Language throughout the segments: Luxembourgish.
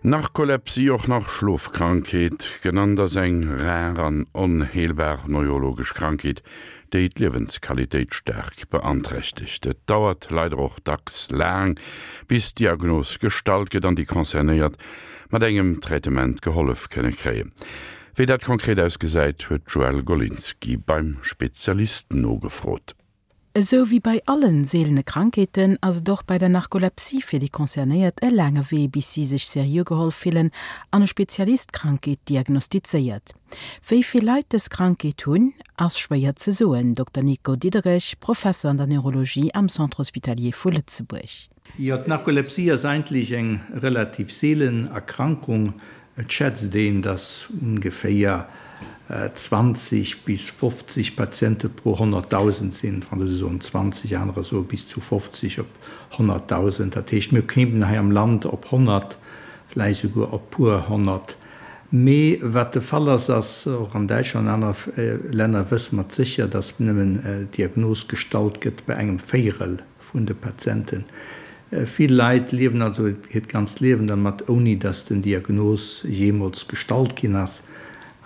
Narkolepsie, och nach Schlofkrankheet genannt, ass eng rar an onheelbar neurologesch Krankheet, déi d'Liewensqualitéit staark beanträchtegt. Et dauert leider och dacks laang, bis d'Diagnos gestallt gëtt an déi Concernéiert mat engem Traitement gehollef kënne kréien. Wéi dat konkret ausgesäit, huet d'Joëlle Golinski beim Spezialist nogefrot. Esou wéi bei allen seelene Krankheeten ass et och bei der Narkolepsie fir déi Concernéiert e laange Wee bis si sech seriö geholl fillen an e Spezialist d'Krankheet diagnostizéiert. Wéi vill Leit dës Krankheet hunn, ass schwéier ze soen, Dokter Nico Diederich, Professer an der Neurologie am Centre Hospitalier vu Lëtzebuerg. Jo, d'Narkolepsie ass eigentlech eng relativ seelen Erkrankung. Et schätzt een, dass ongeféier 20 bis 50 Patiente pro 100.000 sinn. D'Fransouse soen 20, anerer soe bis zu 50 op 100.000. Dat heescht, mir kéimen hei am Land op 100, vläicht souguer op puer 100. Mee wat de Fall ass, ass, och an Däitschland an anere Länner wësse mer et sécher, dass nëmmen d'Diagnos gestallt gëtt bei engem Véierel vun de Patienten. Vill Leit liewen also hiert ganzt Liewen dermat, ouni dass den Diagnos jeemools gestallt ginn ass.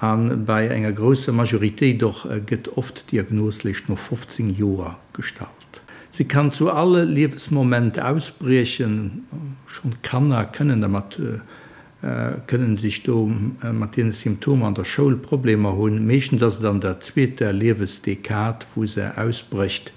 A bei enger grousser Majoritéit och gëtt oft d'Diagnos léischt no 15 Joer gestallt. Se kann zu all Liewesmoment ausbriechen, schonn Kanner kënnen dermat kënnen sech do mat deene Symptomer an der Schoul Problemer hunn. Meeschtens ass et an der zweeter Liewesdekad, wou se ausbrécht.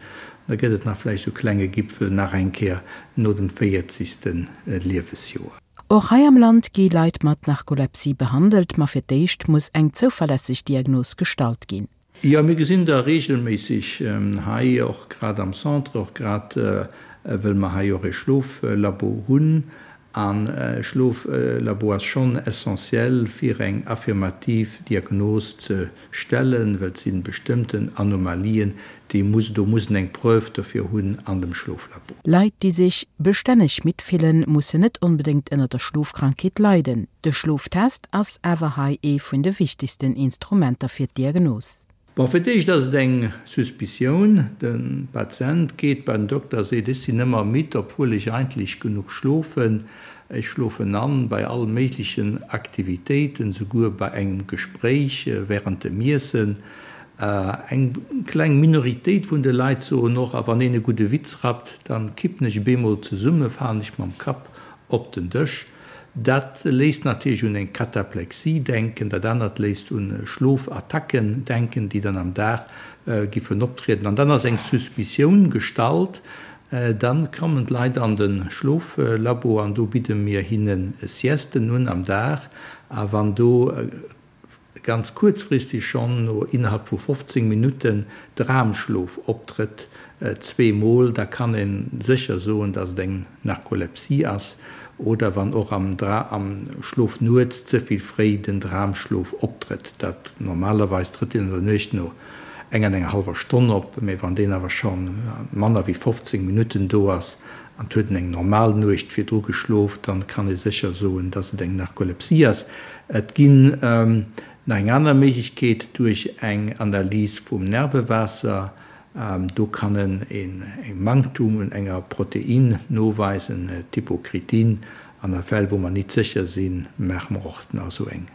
Da gëtt et nach vläicht sou klenge Gipfel nach eng Kéier no dem véierzegste Liewesjoer. Och hei am Land gi Leit mat Narkolepsie behandelt, ma fir d'éischt muss eng zouverlässeg Diagnos gestallt ginn. Jo, mir gesinn der regelméisseg hei, och grad am Centre, och grad wëll mer hei och e Schloflabo hunn. An e Schloflabo ass schonn essentiell fir eng affirmativ Diagnos ze stellen, well et si bestëmmten Anomalien, déi muss, do muss en eng Preuve dofir hunn an dem Schloflabo. Leit, déi sech bestänneg midd fillen, mussen net onbedéngt ënner der Schlofkrankheet leiden. De Schloftest ass awer hei ee vun de wichtegsten Instrumenter fir d'Diagnos. Bon, fir d'éischt ass et eng Suspicioun. De Patient geet bei den Dokter a seet, ech sinn ëmmer midd, obwuel ech eigentlech genuch schlofen. Ech schlofen an bei all méiglechen Aktivitéiten, souguer bei engem Gespréich während dem Iessen. Eng kleng Minoritéit vun de Leit soen och, a wann een e gudde Witz rappt, dann kippen ech bemol zesumme, falen ech mam Kapp op den Dësch. Dat léisst natierlech un eng Kataplexie denken, dat anert léisst un Schlofattacken denken, déi dann am Dag giffen optrieden. An dann ass eng Suspicioun gestallt. Dann kommen d'Leit an de Schloflabo an do bidde mir hinne Siesten un am Dag. A wann do ganz kuerzfristeg schonn no innerhalb vu 15 Minutten Dramschlof optrëtt, zweemol, da kann ee sécher soen, dass et eng Narkolepsie ass, oder wann och am am Schlof nuets ze vill fréi den Dramschlof optrëtt, dat normalerweis trëtt deen an der Nuecht no enger an enger hallwer Stonn op, mee wann deen awer scho manner wéi 15 Minutten do ass an et huet en eng normal Nuecht virdru geschlof, dann kann ee sécher soen, dass et eng Narkolepsie ass. Et ginn nach eng aner Méiglechkeet duerch eng Analys vum Nervewaasser. Do kann en e Manktum un enger Protein noweisen, d'Hypokritin. An a Fäll wou mer nit sécher sinn, maache mer och nach esou eng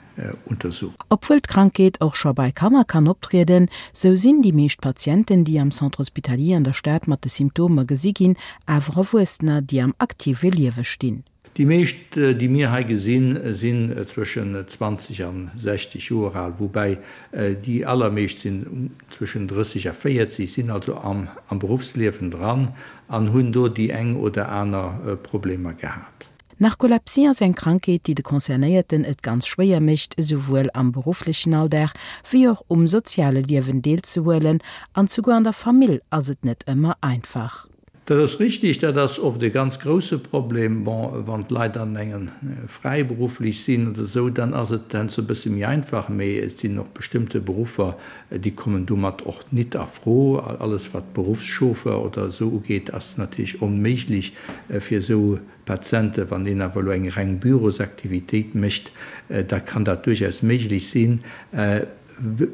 Untersuchung. Obwuel d'Krankheet och scho bei Kanner kann optrieden, sou sinn déi meescht Patienten, déi am Centre hospitalier an der Stad mat de Symptomer gesi ginn, awer Erwuessener, déi am aktive Liewe stinn. Déi meescht, déi mir hei gesinn, sinn zwëschen 20 an 60 Joer al, woubäi déi allermeescht sinn zwëschen 30 a 40, sinn also am Beruffsliewen dran an hunn do déi eng oder aner Problemer gehat. Narkolepsie ass eng Krankheet, déi de Concernéierten et ganz schwéier mécht, esouwuel am berufflechen Alldag wéi och um soziale Liewen deelzehuelen, an souguer an der Famill ass et net ëmmer einfach. Dat ass richtig, dat ass oft e ganz grouse Problem. Bon, wann d'Leit an engen fräiberufflech sinn oder esou, dann ass et heiansdo e bësse méi einfach, mee et sinn och bestëmmte Beruffer, déi kommen domat och nit a Fro. Alles wat Beruffschauffeur oder esou ugeet, ass natierlech onméiglech fir esou Patienten. Wann een awer elo eng reng Bürosaktivitéit mécht, da kann dat duerchaus méiglech sinn.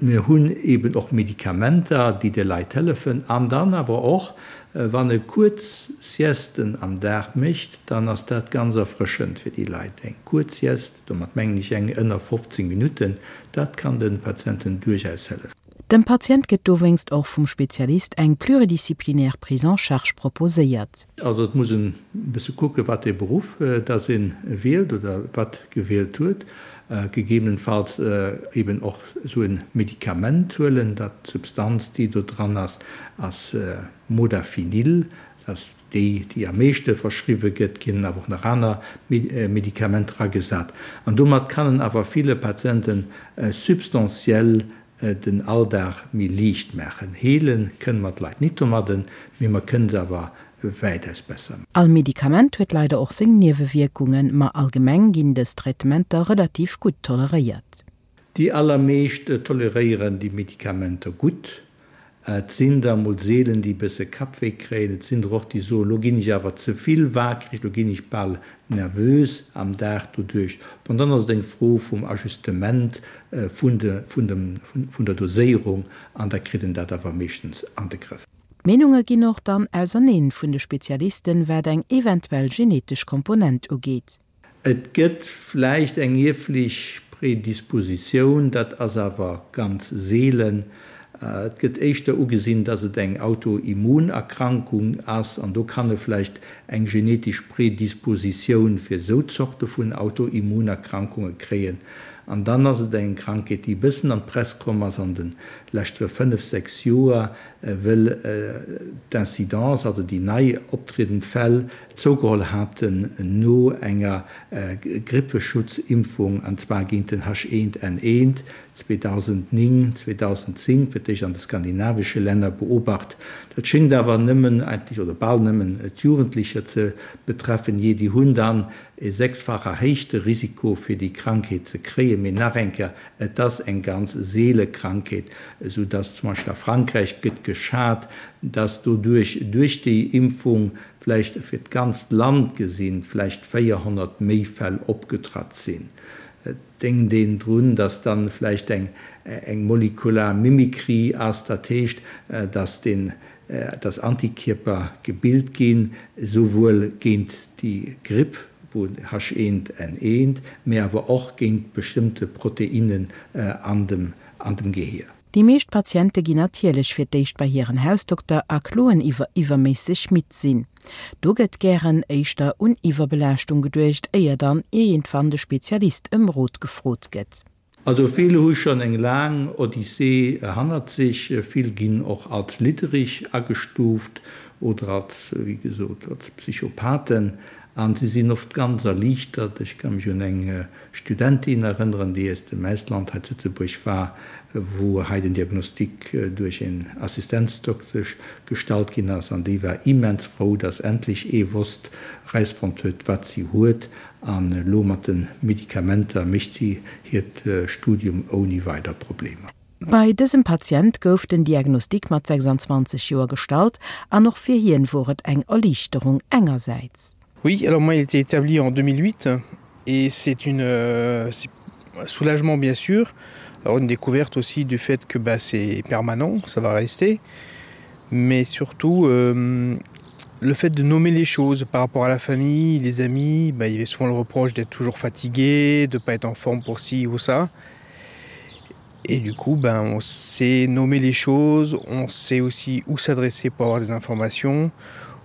Mir hunn eben och Medikamenter, déi de Leit hëllefen. An dann awer och, wann e kuerz Siesten am Dag mécht, dann ass dat ganz erfrëschend fir déi Leit. Eng kuerz Sieste, domat mengen ech eng ënner 15 Minutten, dat kann de Patienten duerchaus hëllefen. Dem Patient gëtt dowéinst och vum Spezialist eng pluridisciplinaire Prise en charge proposéiert. Also et muss en e bësse kucken, wat ee Beruff dass ee wielt oder wat gewielt huet, gegebenenfalls eben och esou e Medikament huelen. Dat d'Substanz, déi do dran ass, ass Modafinil, dat ass déi, déi am meeschte verschriwwe gëtt. Et ginn awer och nach aner Medikamenter agesat. An domat kann en awer ville Patiente substantiell den Alldag méi liicht maachen. Heele kënne mer d'Leit nit domadden, mee mer kënne se awer wäitaus besser. All Medikament huet leider och seng Niewewierkungen, ma allgemeng ginn dës Traitementer relativ gutt toleréiert. Déi allermeescht toleréieren déi Medikamenter gutt. Et sinn der mol seelen, déi e bësse Kappwéi kréien. Et sinn der och, déi soen, lo ginn ech awer ze vill waakreg, lo ginn ech bal nervös am Dag doduerch. Bon, dann ass et eng Fro vum Ajustement vun de, vun dem, vun der Doséierung an da kritt en dat awer meeschtens an de Grëff. D'Meenunge ginn och dann auserneen vun de Spezialisten, wat eng eventuell genetesch Komponent ugeet. Et gëtt vläicht eng ierflech Predispositioun, dat ass awer ganz seelen. Et gëtt éischter ugesinn, dass et eng Autoimmunerkrankung ass, an do kann e vläicht eng genetesch Predispositioun fir esou Zorte vun Autoimmunerkrankunge kréien. An dann ass et eng Krankheet, déi e bëssen an d'Press komm ass an de leschtere fënnef, sechs Joer, wëll d'Incidence, also déi nei optriedend Fäll, zougeholl haten no enger Grippeschutzimpfung, an zwar géint den H1N1, 2009, 2010, fir d'éischt an de skandinavesche Länner beobacht. Dat schéngt awer nëmmen eigentlech, oder bal nëmmen d'Jugendlecher ze betreffen, jee, déi hunn dann e sechsfach erhéichte Risiko fir déi Krankheet ze kréien. Mee nach eng Kéier, et ass eng ganz seele Krankheet, esou dass zum Beispill a Frankräich gëtt geschat, dass doduerch, duerch déi Impfung, vläicht fir d'ganzt Land gesinn, vläicht 400 méi Fäll opgetratt sinn. Et denkt een drun, dass dann vläicht eng eng molekular Mimikry ass, dat heescht, dass den dass Antikierper gebilt ginn, esouwuel géint déi Gripp, wou H1N1, mee awer och géint bestëmmte Proteinnen an dem an dem Gehier. Déi meescht Patiente ginn natierlech fir d'éischt bei hiren Hausdokter a kloen iwwer iwwerméisseg midd sinn. Do gëtt gären éischter un Iwwerbelaaschtung geduecht, éier dann iergendwann de Spezialist ëm Rot gefrot gëtt. Also vill hu schonn eng laang Odyssee hannert sech, vill ginn och als liddereg agestuuft oder als, wéi gesot, als Psychopathen an si sinn oft ganz erliichtert. Ech ka mech un eng Studentin erënneren, déi aus dem Ausland hei zu Lëtzebuerg war, wou hei den Diagnostic duerch een Assistenzdoktesch gestallt ginn ass, an déi war immens frou, dass endlech ee wosst, erausfonnt huet, wat si huet, an elo mat de Medikamenter mécht si hiert Studium ouni weider Problemer. Bei dësem Patient gouf den Diagnostic mat 26 Joer gestallt, an och fir hien wor et eng Erliichterung engersäits. Oui, alors moi il était établi en 2008 et c'est une euh, un soulagement bien sûr, alors une découverte aussi du fait que bah, c'est permanent, ça va rester, mais surtout euh, le fait de nommer les choses par rapport à la famille, les amis, bah, il y avait souvent le reproche d'être toujours fatigué, de pas être en forme pour ci ou ça. Et du coup ben, on sait nommer les choses, on sait aussi où s'adresser pour avoir des informations.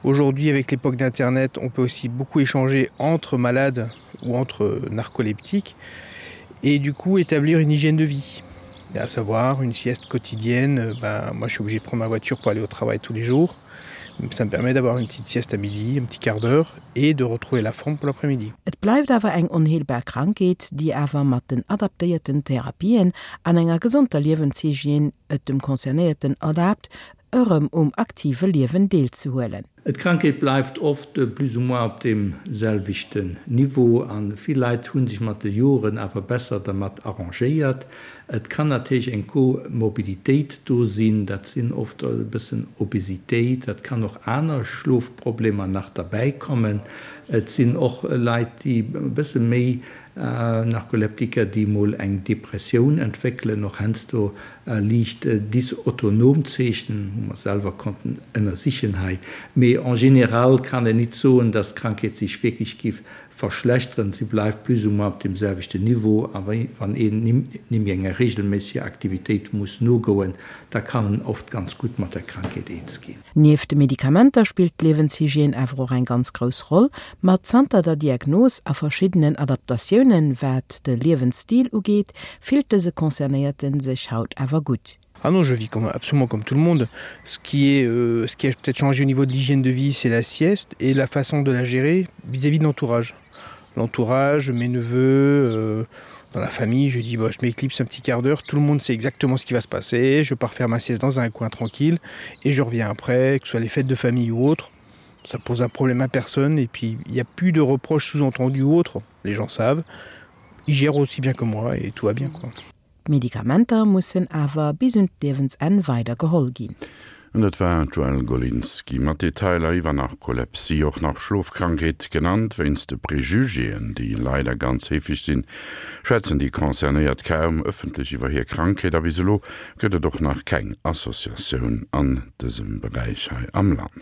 Aujourd'hui avec l'époque d'internet, on peut aussi beaucoup échanger entre malades ou entre narcoleptiques et du coup établir une hygiène de vie à savoir une sieste quotidienne ben, moi je suis obligé de prendre ma voiture pour aller au travail tous les jours ça me permet d'avoir une petite sieste à midi un petit quart d'heure et de retrouver la forme pour l'après-midi. Et bleift awer eng onheelbar Krankheet, déi awer mat den adaptéierten Therapien an enger gesonder Liewenshygiène et dem Concernéierten erlaabt, erëm um aktive Liewen deelzehuelen. D'Krankheet bleift oft plus ou moins op deem selwechten Niveau a vill Leit hu sech mat de Joren awer besser dermat arrangéiert. Et kann natierlech eng Komorbiditéit do sinn, dat sinn oft e bëssen Obesitéit, dat kann och aner Schlofproblemer nach derbäi kommen. Et sinn och Leit, déi e bësse méi Narkoleptiker, déi mol eng Depressioun entwéckelen, och heiansdo liicht dysautonom Zeechen, hu mer selwer konnten ënnersichen hei. Mee en général kann een nit soen, dass d'Krankheet sech wierklech giff verschlechteren, si bleift plus ou moins op deem selwechten Niveau. A wann een nimm enger reegelméisseger Aktivitéit muss nogoen, da kann en oft ganz gutt mat der Krankheet eens ginn. Nieft de Medikamenter spillt d'Liewenshygiène awer och eng ganz grouss Roll. Ma zanter der Diagnos a verschiddenen Adaptatiounen, wat de Liewensstil ugeet, fillt dëse Concernéierte sech haut awer gutt. Ah non, je vis comme, absolument comme tout le monde. Ce qui est euh, ce qui a peut-être changé au niveau de l'hygiène de vie, c'est la sieste et la façon de la gérer vis-à-vis -vis de l'entourage. L'entourage, mes neveux, euh, dans la famille, je dis bah, je m'éclipse un petit quart d'heure, tout le monde sait exactement ce qui va se passer, je pars faire ma sieste dans un coin tranquille et je reviens après, que ce soit les fêtes de famille ou autre. Ça pose un problème à personne et puis il n'y a plus de reproches sous-entendus ou autres, les gens savent. Ils gèrent aussi bien que moi et tout va bien quoi. D'Medikamenter mussen awer bis un d'Liewensenn weider geholl ginn. An dat war d'Joëlle Golinski mat Detailer iwwer Narkolepsie, och nach Schlofkrankheet genannt. Wéinst de Prejugéen, déi leider ganz heefeg sinn, schwätzen déi Concernéiert kaum ëffentlech iwwer hir Krankheet a bis elo gëtt et och nach keng Associatioun an dësem Beräich hei am Land.